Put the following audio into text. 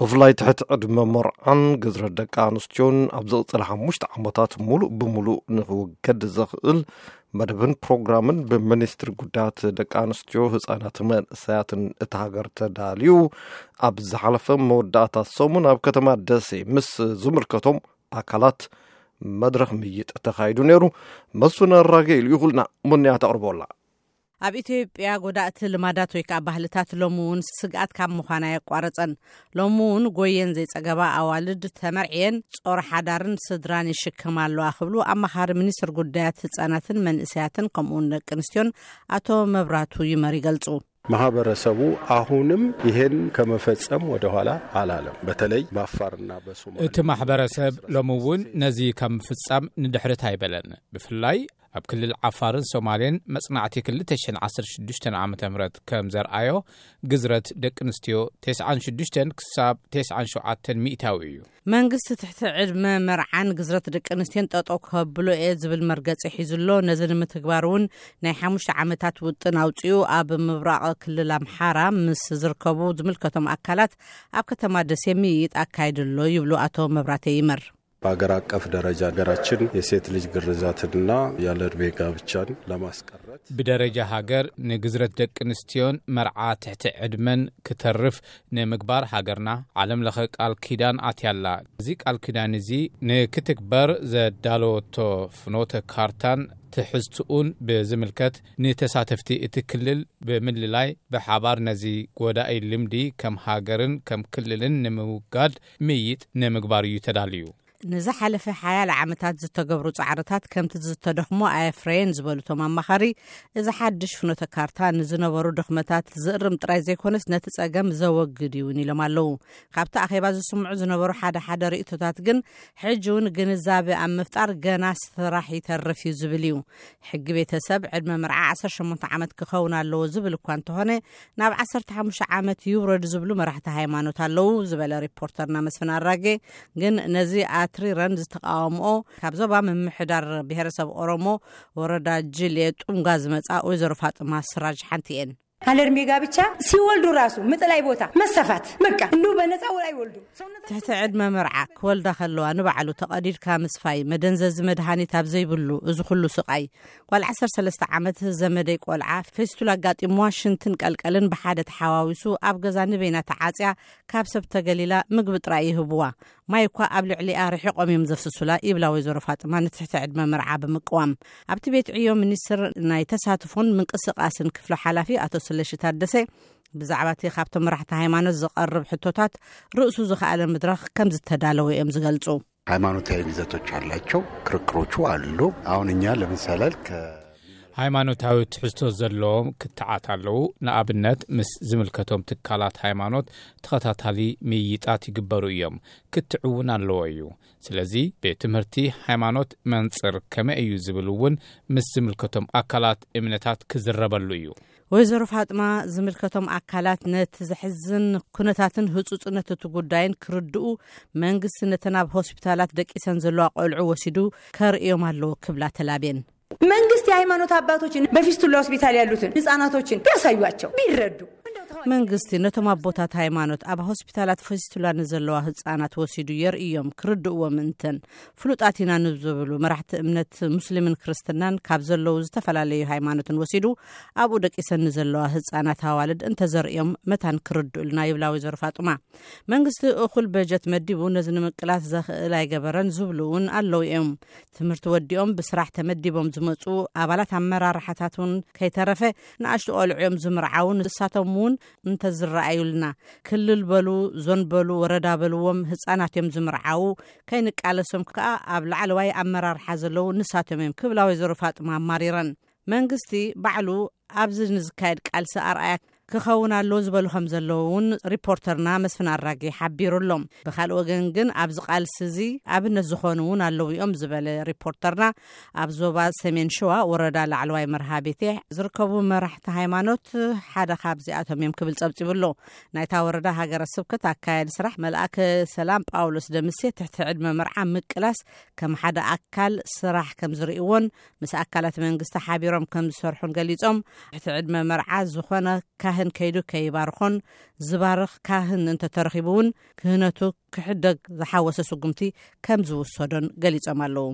ብፍላይ ትሕቲ ዕድመ መርዓን ግዝረት ደቂ ኣንስትዮን ኣብ ዝቕጽል ሓሙሽተ ዓመታት ሙሉእ ብሙሉእ ንኽውገድ ዘኽእል መደብን ፕሮግራምን ብሚኒስትሪ ጉዳያት ደቂ ኣንስትዮ፣ ህጻናትን መንእሰያትን እታ ሃገር ተዳልዩ ኣብ ዝሓለፈ መወዳእታ ሰሙን ኣብ ከተማ ደሴ ምስ ዝምልከቶም ኣካላት መድረኽ ምይጥ ተኻይዱ ነይሩ። መስፍን ኣራጌ ልኢኹልና፣ ሙንያ ተቕርቦላ። ኣብ ኢትዮጵያ ጎዳእቲ ልማዳት ወይ ከዓ ባህልታት ሎሚ እውን ስግኣት ካብ ምዃን ኣየቋረጸን። ሎሚ እውን ጎየን ዘይጸገባ ኣዋልድ ተመርዕየን ጾር ሓዳርን ስድራን ይሽከማ ኣለዋ ክብሉ ኣማኻሪ ሚኒስትር ጉዳያት ህጻናትን መንእሰያትን ከምኡ እውን ደቂ ኣንስትዮን ኣቶ መብራቱ ይመር ይገልጹ። ማህበረሰቡ አሁንም ይሄን ከመፈጸም ወደኋላ አላለም። በተለይ በአፋርና በሶማሌ እቲ ማሕበረሰብ ሎሚ እውን ነዚ ካብ ምፍጻም ንድሕሪት ኣይበለን። ብፍላይ ኣብ ክልል ዓፋርን ሶማሌን መጽናዕቲ ክልተ ሽሕን ዓሰርተ ሽዱሽተን ዓመተ ምህረት ከም ዘርኣዮ፣ ግዝረት ደቂ ኣንስትዮ ተስዓን ሽዱሽተን ክሳብ ተስዓን ሸውዓተን ሚእታዊ እዩ። መንግስቲ ትሕቲ ዕድመ መርዓን ግዝረት ደቂ ኣንስትዮን ጠጠው ከብሎ እየ ዝብል መርገጺ ሒዙ ኣሎ። ነዚ ንምትግባር እውን ናይ ሓሙሽተ ዓመታት ውጥን ኣውጺኡ ኣብ ምብራቕ ክልል ኣምሓራ ምስ ዝርከቡ ዝምልከቶም ኣካላት ኣብ ከተማ ደሴ ምይይጥ ኣካይዱ ኣሎ ይብሉ ኣቶ መብራቴ ይመር። በሀገር አቀፍ ደረጃ ሀገራችን የሴት ልጅ ግርዛትንና ያለ ዕድሜ ጋብቻን ለማስቀረት ብደረጃ ሃገር ንግዝረት ደቂ ኣንስትዮን መርዓ ትሕቲ ዕድመን ክተርፍ ንምግባር ሃገርና ዓለም ለኸ ቃል ኪዳን ኣትያላ። እዚ ቃል ኪዳን እዚ ንክትግበር ዘዳለወቶ ፍኖተ ካርታን ትሕዝትኡን ብዝምልከት ንተሳተፍቲ እቲ ክልል ብምልላይ ብሓባር ነዚ ጎዳኢ ልምዲ ከም ሃገርን ከም ክልልን ንምውጋድ ምይጥ ንምግባር እዩ ተዳልዩ። ንዝሓለፈ ሓያለ ዓመታት ዝተገብሩ ጻዕርታት ከምቲ ዝተደኽሞ ኣየፍረየን ዝበሉ እቶም ኣማኻሪ፣ እዚ ሓድሽ ፍኖተ ካርታ ንዝነበሩ ድኽመታት ዝእርም ጥራይ ዘይኮነስ ነቲ ጸገም ዘወግድ እውን ኢሎም ኣለዉ። ካብቲ ኣኼባ ዝስምዑ ዝነበሩ ሓደ ሓደ ርእይቶታት ግን ሕጂ እውን ግንዛበ ኣብ ምፍጣር ገና ስራሕ ይተርፍ እዩ ዝብል እዩ። ሕጊ ቤተሰብ ዕድመ መርዓ ዓሰርተ ሸሞንተ ዓመት ክኸውን ኣለዎ ዝብል እኳ እንተኾነ ናብ ዓሰርተ ሓሙሽተ ዓመት ይውረድ ዝብሉ መራሕቲ ሃይማኖት ኣለዉ ዝበለ ሪፖርተርና መስፍን ኣራጌ፣ ግን ነዚ ኣትሪረን ዝተቃወምኦ ካብ ዞባ ምምሕዳር ብሄረሰብ ኦሮሞ ወረዳ ጅሌ ጡምጋ ዝመጻ ወይዘሮ ፋጥማ ስራጅ ሓንቲ እየን። አለ እድሜ ጋብቻ ሲወልዱ ራሱ ምጥላይ ቦታ መሰፋት በቃ እንዲሁ በነፃ ውላ ይወልዱ። ትሕቲ ዕድመ መርዓ ክወልዳ ከለዋ ንባዕሉ ተቐዲድካ ምስፋይ፣ መደንዘዚ መድሃኒት ኣብ ዘይብሉ እዚ ኩሉ ስቓይ። ጓል ዓሰርተ ሰለስተ ዓመት ዘመደይ ቆልዓ ፌስቱላ ኣጋጢምዋ ሽንትን ቀልቀልን ብሓደ ተሓዋዊሱ ኣብ ገዛ ንበይና ተዓጽያ ካብ ሰብ ተገሊላ ምግቢ ጥራይ ይህብዋ። ማይ እኳ ኣብ ልዕሊኣ ርሒቖም እዮም ዘፍስሱላ ይብላ ወይዘሮ ፋጥማ ንትሕቲ ዕድመ መርዓ ብምቅዋም። ኣብቲ ቤት ዕዮ ሚኒስትር ናይ ተሳትፎን ምንቅስቃስን ክፍሎ ሓላፊ ኣቶ ስለሺ ታደሰ ብዛዕባ እቲ ካብቶም መራሕቲ ሃይማኖት ዝቐርብ ሕቶታት ርእሱ ዝኸኣለ መድረኽ ከም ዝተዳለወ እዮም ዝገልጹ። ሃይማኖታዊ ይዘቶች አላቸው፣ ክርክሮቹ አሉ። አሁን እኛ ለምሳሌ ከ ሃይማኖታዊ ትሕዝቶ ዘለዎም ክትዓት ኣለዉ። ንኣብነት ምስ ዝምልከቶም ትካላት ሃይማኖት ተኸታታሊ ምይይጣት ይግበሩ እዮም። ክትዕ እውን ኣለዎ እዩ። ስለዚ ቤት ትምህርቲ ሃይማኖት መንጽር ከመይ እዩ ዝብል እውን ምስ ዝምልከቶም ኣካላት እምነታት ክዝረበሉ እዩ። ወይዘሮ ፋጥማ ዝምልከቶም ኣካላት ነቲ ዘሕዝን ኩነታትን ህጹጽነት እቲ ጉዳይን ክርድኡ መንግስቲ ነተን ኣብ ሆስፒታላት ደቂሰን ዘለዋ ቆልዑ ወሲዱ ከርእዮም ኣለዎ ክብላ ተላብየን። መንግስት የሃይማኖት አባቶችን በፊስቱላ ሆስፒታል ያሉትን ህጻናቶችን ቢያሳዩአቸው ቢረዱ። መንግስቲ ነቶም ኣቦታት ሃይማኖት ኣብ ሆስፒታላት ፊስቱላ ንዘለዋ ህጻናት ወሲዱ የርእዮም፣ ክርድእዎም እንተን ፍሉጣት ኢና ንዝብሉ መራሕቲ እምነት ሙስሊምን ክርስትናን ካብ ዘለዉ ዝተፈላለዩ ሃይማኖትን ወሲዱ ኣብኡ ደቂሰን ንዘለዋ ህጻናት ኣዋልድ እንተዘርእዮም መታን ክርድኡልና ይብላ ወይዘሮ ፋጡማ። መንግስቲ እኹል በጀት መዲቡ ነዚ ንምቅላስ ዘኽእል ኣይገበረን ዝብሉ እውን ኣለዉ እዮም። ትምህርቲ ወዲኦም ብስራሕ ተመዲቦም ዝመፁ ኣባላት ኣመራርሓታት እውን ከይተረፈ ንኣሽቱ ቆልዑ እዮም ዝምርዓዉ። ንሳቶም እውን እንተዝረኣዩልና ክልል በሉ ዞን በሉ ወረዳ በልዎም ህፃናት እዮም ዝምርዓዉ። ከይንቃለሶም ከዓ ኣብ ላዕለዋይ ኣመራርሓ ዘለዉ ንሳቶም እዮም ክብላ ወይዘሮ ፋጥማ ኣማሪረን። መንግስቲ ባዕሉ ኣብዚ ንዝካየድ ቃልሲ ኣርኣያ ክኸውን ኣሎ ዝበሉ ከም ዘለዉ እውን ሪፖርተርና መስፍን ኣራጌ ሓቢሩ ኣሎ። ብካልእ ወገን ግን ኣብዚ ቃልሲ እዚ ኣብነት ዝኾኑ እውን ኣለዉ እዮም ዝበለ ሪፖርተርና፣ ኣብ ዞባ ሰሜን ሸዋ ወረዳ ላዕለዋይ መርሃ ቤቴ ዝርከቡ መራሕቲ ሃይማኖት ሓደ ካብዚኣቶም እዮም ክብል ጸብጺቡ ኣሎ። ናይታ ወረዳ ሃገረ ስብከት ኣካያዲ ስራሕ መልኣከ ሰላም ጳውሎስ ደምሴ ትሕቲ ዕድመ መርዓ ምቅላስ ከም ሓደ ኣካል ስራሕ ከም ዝርእይዎን ምስ ኣካላት መንግስቲ ሓቢሮም ከም ዝሰርሑን ገሊጾም፣ ትሕቲ ዕድመ መርዓ ዝኾነ ከይዱ ከይባርኾን ዝባርኽ ካህን እንተተረኺቡ እውን ክህነቱ ክሕደግ ዝሓወሰ ስጉምቲ ከም ዝውሰዶን ገሊጾም ኣለዉ።